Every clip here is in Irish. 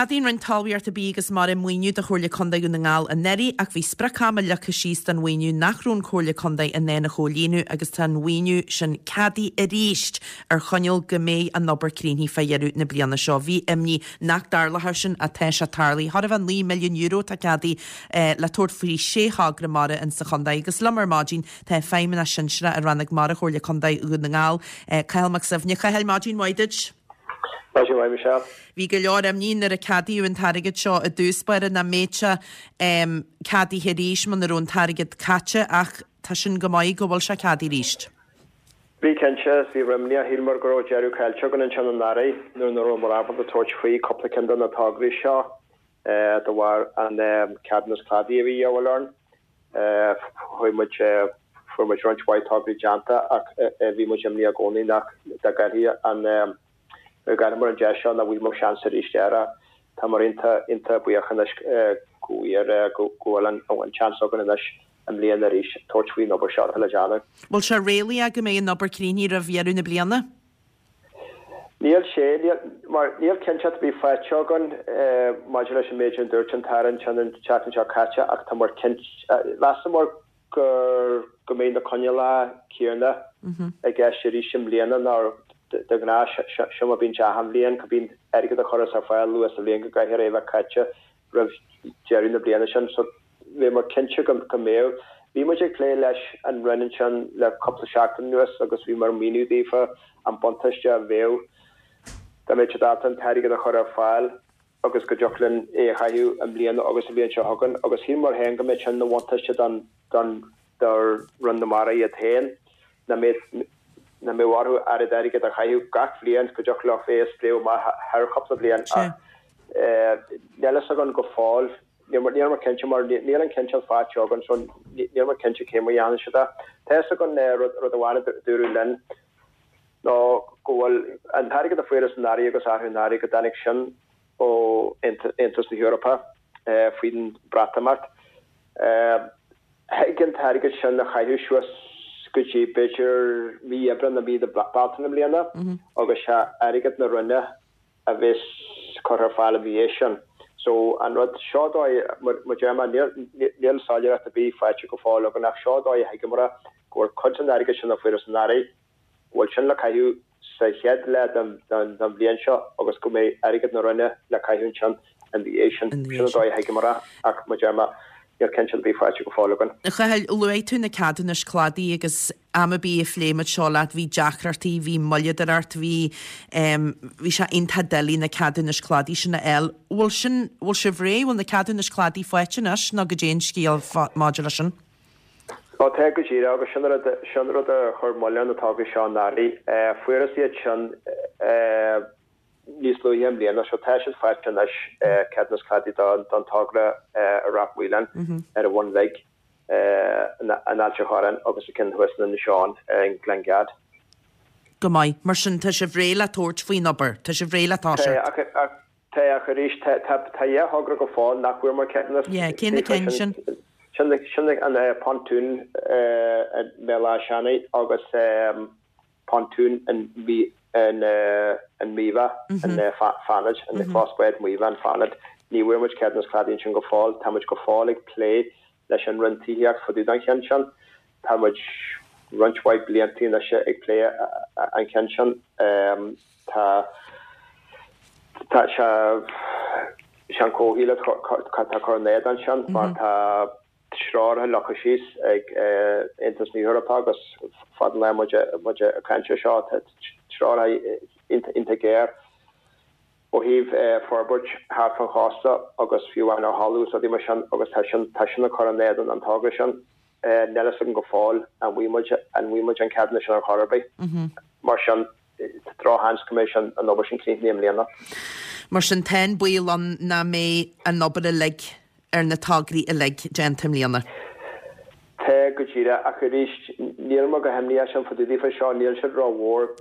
Cheadaigh an Roinn Talmhaíochta, Bídh agus Mara maoiniú do Chomhairle Contae Dhún na nGall anuraidh ach bhí sprioc-ama leagtha síos don mhaoiniú nach raibh an Chomhairle Contae in ann a chomhlíonadh agus tá an mhaoiniú sin ceadaithe arís ar choinníoll go mbeidh an obair críochnaithe fá dheireadh na bliana seo. Bhí imní nach dtarlódh sin ach tá sé tarlaithe. Chóir a bheith €9 milliún atá ceadaithe le tabhairt faoi shé thogra mara in sa chontae agus liom ar maidin tá Feidhmeannach Sinsearach i Rannóg Mara Chomhairle Contae Dhún na nGall, Cathal Mac Suibhne. Cathail, maidin mhaith duit. Maidin mhaith, Michelle. Bhí go leor imní nuair a ceadaíodh an t-airgead seo i dtús báire nach mbeadh sé ceadaithe arís muna raibh an t-airgead caite ach tá sin go maith go bhfuil sé ceadaithe arís. Bhí cinnte, bhí imní, shíleamar go raibh deireadh caillte againn ansin anuraidh nuair nach rabhamar ábalta tabhairt faoi cúpla ceann de na tograí seo de bharr an ceadúnas cladaigh a bhí a dhíobháil orainn. Chuaigh muid, fuair muid roinnt mhaith tograí déanta ach bhí muid imníoch i gcónaí nach dá gcaillfí an, dá gcaillfeamar an deis seo nach bhfaighfeamar seans arís air. Táimid iontach, iontach buíoch anois go bhfuair, go bhfuil an seans againn anois i mbliana arís tabhairt faoin obair seo atá le déanamh. Bhfuil sé réalaíoch go mbeidh an obair críochnaithe roimh dheireadh na bliana? Níl sé, níl, mar níl cinnteacht ar bith faighte againn maidir leis an méid a dúirt an tAire ansin an tseachtain seo caite ach tá muid cinnte, mheasamar gur, go mbeidh na coinníollacha céanna i gceist arís i mbliana ná de ghnáth, seo mar a bíonn sé achan bhliain, go mbíonn airgead a chuireas ar fáil luath sa bhliain go gcaithfear é a bheith caite roimh deireadh na bliana sin. So bhíomar cinnte go mbeadh. Bhí muid ag plé leis an Roinn ansin le cúpla seachtain anuas agus bhíomar ag míniú daofa an buntáiste a bheadh dá mbeadh siad ábalta an t-airgead a chur ar fáil agus go dtiocfadh linn é a chaitheamh i mbliana agus an bhliain seo chugainn agus shíleamar féin go mbeadh sin ina bhuntáiste don don do Roinn na Mara iad féin, nach mbeadh nach mbeadh orthu oiread airgid a chaitheamh gach bhliain, go dtiocfadh leo é a spréadh amach thar chúpla bliain ach níl fhios againn go fóill, níl muid cinnte mar níl an cinnteacht faighte againn so níl muid cinnte cé mar a dhéanfaidh siad é. Tá fhios againn rud amháin a dúradh linn ná go bhfuil an t-airgead a fuarthas anuraidh agus arú anuraidh go dtáinig sin ó Aontas na hEorpa faoin Bhreatimeacht. Thig an t-airgead sin a chaitheamh suas go dtí b'fhéidir mí Aibreán nó mí na Bealtaine i mbliana agus sé airgead na Roinne a bheas curtha ar fáil ina dhiaidh sin. So an rud seo dóigh, mar a deir mé, níl soiléireacht ar bith faighte go fóill againn ach seo dóigh a thuigeamar go bhfuil cuid den airgead sin a fuarthas anuraidh, go bhfuil sin le caitheamh sa chéad leath den bhliain seo agus go mbeidh airgead na Roinne le caitheamh ansin ina dhiaidh sin. Sin an dóigh a thuigeamar é ach mar a deir mé, níl cinnteacht ar bith faighte go fóill againn. A Chathail, luaigh tú na ceadúnais cladaigh agus am ar bith a phléigh muid seo leat bhí deacrachtaí, bhí moilleadóireacht, bhí bhí sé iontach doiligh na ceadúnais cladaigh sin a fháil. Bhfuil sin, bhfuil sibh réidh, bhfuil na ceadúnais cladaigh faighte anois nó goidé an scéal maidir leis sin? Ó tá go díreach, agus sin rud, sin rud a chuir moill ar na tograí seo anuraidh. Fuarthas iad sin níos luaithe i mbliana, so tá siad faighte anois, ceadúnas cladaigh don togra i Ráth Maoláin ar an Bhun Bhig, in Ailt an Chorráin agus an ceann thuas in Inis Eoghain i nGleann Gad. Go maith. Mar sin, tá sibh réidh le tabhairt faoin obair? Tá sibh réidh le toiseacht? Tá, ach Tá, ach arís, tá dhá thogra go fóill nach bhfuair muid ceadúnas. Yeah, cé na cinn sin? Sin sin an pontoon i mBéal Átha Seanaidh agus pontoon in in Míobha, in Fánaid, in Clós Báid Mhaíobha in Fánaid. Ní bhfuair muid ceadúnas cladaigh ansin go fóill. Tá muid go fóill ag plé leis an Roinn Tithíochta fá dtaobh den cheann sin. Tá muid roinnt mhaith blianta anois ag plé an cheann sin. Tá tá sé sé an comhshaol atá ag cur in éadan sin mar tá treoracha leagtha síos ag Aontas na hEorpa agus fad an lá muid muid ag caint ar seo tá treoracha iontach géar ó thaobh forbairt thart fán chósta agus fiú amháin ar thalamh is rudaí mar sin agus tá sin tá sin ag cur in éadan an togra sin. Níl fhios agam go fóill an bhfaighidh muid an bhfaighidh muid an ceadúnas sin ar chor ar bith. Mar sin tá drochsheans go mbeidh sin an obair sin críochnaithe i mbliana. Mar sin tá an baol ann nach mbeidh an obair uilig ar na tograí uilig déanta i mbliana. Tá, go díreach, ach arís níl mé go himníoch sin fá dtaobh daofa seo, níl siad rómhór.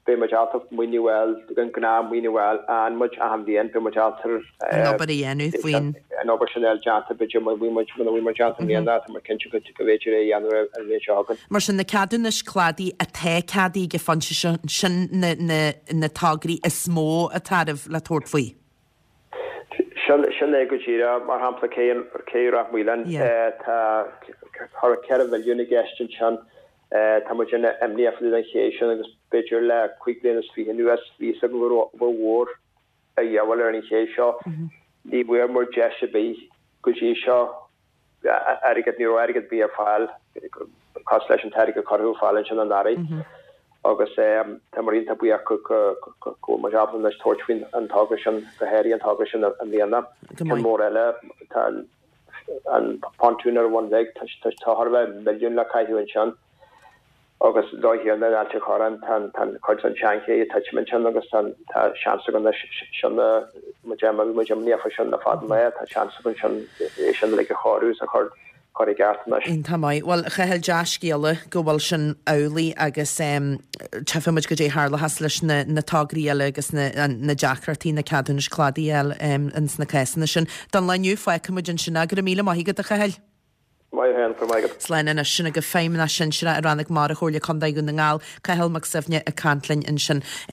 Beidh muid ábalta maoiniú a fháil, an gnáth maoiniú a fháil a fhaigheann muid achan bhliain, beidh muid ábalta an obair a dhéanamh faoin. an obair sin a fháil déanta, b'fhéidir muna bhfuil muid, muna bhfuil muid déanta i mbliana, tá muid cinnte go bhféidir é a dhéanamh an bhliain seo chugainn. Mar sin, na ceadúnais cladaigh atá ceadaithe ag an phointe seo, sin na, na, na tograí is mó atá oraibh le tabhairt faoi. Sin, sin é go díreach. Mar shampla, cé, cé Ráth Maoláin, tá thar 4 mhilliún i gceist ansin. Tá muid an-imníoch fá dtaobh den ché sin agus b'fhéidir le cúig bliana is fiche anuas, bhí fhios againn go raibh obair mhór a dhíobháil ar an ché seo. Ní bhfuair muid deis ar bith go dtí seo airgead, ní raibh airgead ar bith ar fáil cosúil leis an t-airgead a cuireadh ar fáil ansin anuraidh. Agus tá muid iontach buíoch go bhfuil muid ábalta anois tabhairt faoin an togra sin, go háirithe an togra sin i mbliana. Ceann mór eile, tá an pontún ar an Bhun Bheag, tá chóir a bheith milliún le caitheamh ansin. Agus an dóigh chéanna in Ailt an Chorráin, tá an cuid den tseanché ag titim ansin agus tá seans againn anois sin a, muid bhí muid imníoch faoi sin le fada an lá, tá seans againn sin é sin uilig a chóiriú is a chur chur i gceart anois. Iontach maith. Bhuel, a Chathail, dea-scéala go bhfuil sin amhlaidh agus tchífidh muid goidé a tharlóchas leis na na tograí eile agus na na deacrachtaí na ceadúnais cladaigh a fháil ins na cásanna sin. Don lá inniu, fágfaidh muid ansin é. Go raibh míle maith agat, a Chathail. Maith thú féin, go raibh maith agat. Slán anois. Sin agaibh Feidhmeannach Sinsearach i Rannóg Mara Chomhairle Contae Dhún na nGall, Cathal Mac Suibhne ag caint linn ansin.